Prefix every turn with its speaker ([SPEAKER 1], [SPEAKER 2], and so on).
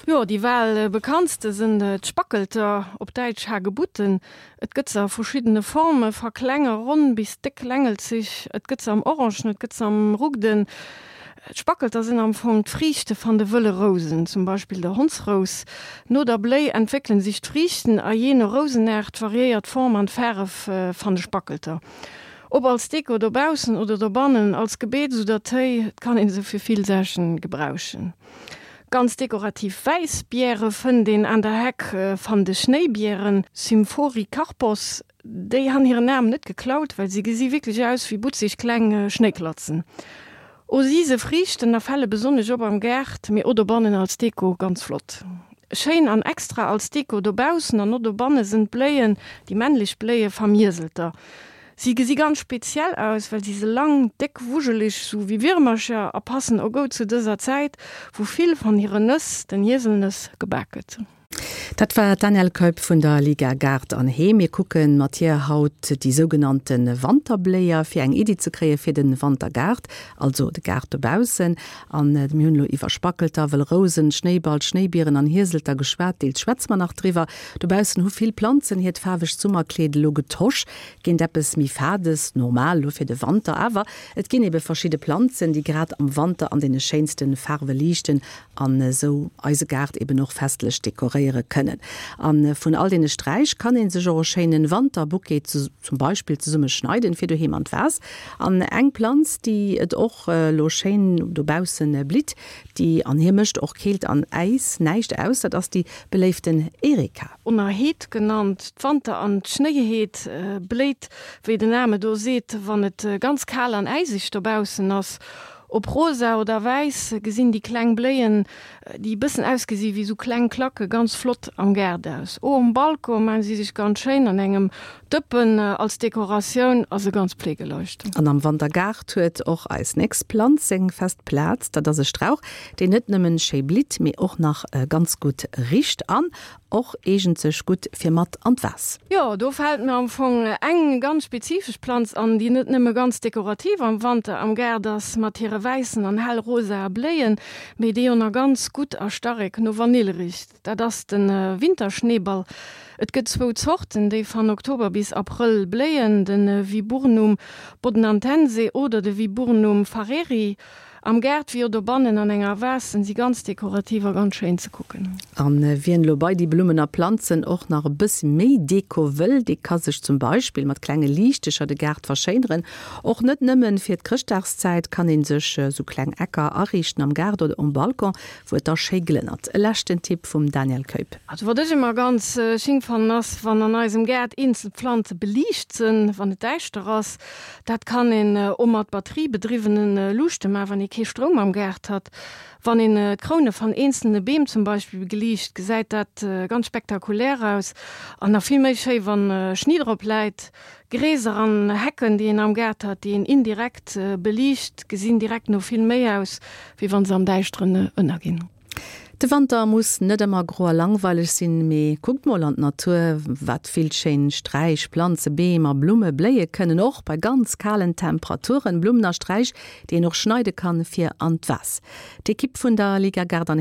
[SPEAKER 1] Jo, déi bal bekanntste sënn d'Spackelter, op Däitsch Hagebutten. Et gëtt se a verschiddene Formen, va kleng a ronn bis déck längelzeg. Et gëtt se am Orangen, et gëtt se am Rugden. D'Spackelter sinn am Fong d'Friichte van de wëlle Rousen, zum Beispill der Hondsrous. No der Bléi entwéckelen sich d'Friichten a jee no Rousenaart variéiert d'Form an d'Faaref van de Spackelter. Ob als Deko dobaussen oder dobannen, als Gebeets oder Téi, et kann een se fir vill Saachen gebrauchen. Ganz dekorativ wäiss Biere fënnt een aan der Heck van de Schnéibieren, Symphoricarpos. Déi han hiren Naam net geklaut, well si gesi wierklech aus wéi butzeg kleng Schnéiklatzen. O si se friichten a fälle besonnesch op am Gaart, mee o dobannen als Deko ganz flott. Schéin an extra als Deko dobaussen an o dobanne sënn d'Bléien, déi männlech Bléie vam Hieselter. Si gesi ganz speziell aus, well si se lang, déck, wujeleg, sou wéi Wirmercher a passen o goud zu dëser Zäit, wou vill van hire Nëss, den Hieselnëss, gebak gëtt.
[SPEAKER 2] Dat war d'Danièle Keup vun der Liga Gaart an Heem. Mir kucke mat hir haut déi sougenannte Wanterbléier, fir eng Iddi ze kréie fir de Wantergaart, also de Gaart dobaussen. An mir hunn elo iwwer Spackelter, wëll Rousen, Schnéiball, Schnéibieren an Hieselter geschwat. Deels schwätze mer nach driwwer. Dobaussen hu vill Planzen hiert faarwegt Summerkleed elo getosch géint eppes méi Fades, normal elo fir de Wanter. Awer et ginn ebe verschidde Planzen, déi grad am Wanter an deene schéinste Faarwe liichten an esou eise Gaart eben och festlech dekoréiere kënnen. A vun all deene Sträich kann ee sech och e schéinen Wanterbouquet zum Beispill zesumme schneiden fir doheem an d'Vas. An eng Planz déi et och elo schéin dobaussen blitt, déi an hir mécht och Keelt an Äis näischt aus, dat ass déi beléiften Erika.
[SPEAKER 1] Onerheet genannt, d'Wanter an d'Schnéiheet bléit, wéi den Name do seet, wann et ganz kal an äiseg dobaussen ass. Ob rosa oder wäiss, gesinn déi kleng Bléien, déi e bëssen ausgesi wéi sou kleng Klacke, ganz flott am Gaart aus. O um Balcon maan si sech ganz schéin an engem Dëppen als Dekoratioun a se ganz pflegeleicht.
[SPEAKER 2] An am Wantergaart huet och eis nächst Planz seng fest Plaz. Dat ass e Strauch, deen net nëmmen schéi blitt, mee och nach ganz gutt richt an Och eegent sech gutt fir mat an d'Vas.
[SPEAKER 1] Jo, do fält mir am Fong eng ganz spezifesch Planz an, déi net nëmme ganz dekorativ am Wanter am Gaart ass mat hire wäissen an hell rosae Bléien, mee déi och nach ganz gutt a starek no Vanill richt. Dat ass de Winterschneeball. Et gëtt zwou Zorten, déi van Oktober bis Abrëll bléien, de Viburnum bodnantense oder de Viburnum farreri. Am Gaart wéi och dobannen an enger Vase sen si ganz dekorativ a ganz schéin ze kucken.
[SPEAKER 2] An wien elo bei déi Blummen a Planzen och nach e bëssi méi Deko wëll, dee ka sech zum Beispill mat klenge Liichtecher de Gaart verschéineren. Och net nëmmen fir d'Chrëschtdagszäit kann een sech sou kleng Ecker ariichten am Gaart oder um Balcon, wou et da schéi glënnert. E leschten Tipp vum Danièle Keup.
[SPEAKER 1] Also wat ech ëmmer ganz sching fannen ass, wann an eisem Gaart eenzel Pflanze beliicht sen, wann et däischter ass. Dat kann een o mat batteriebedriwwenen Luuchte man, wann ee kee Stroum am Gaart hat. Wann een d'Kroune van eenzelne Beem zum Beispill beliicht, gesäit dat ganz spektakulär aus. An nach vill méi schéi wann Schni drop läit. Gräser an Hecken déi een am Gaart hat, déi een indirekt beliicht, gesinn direkt no vill méi aus, wéi wann se am Däischteren ënnerginn.
[SPEAKER 2] De Wanter muss net ëmmer gro a langweileg sinn, mee kuckt mol an d'Natur, wat vill schéin Sträich, Planze, Beem a Blumme bléie kënnen, och bei ganz kalen Temperaturen. Blummen a Sträich, déi een och schneide kann fir an d'Vas. D'Ekipp vun der Liga Gaart an.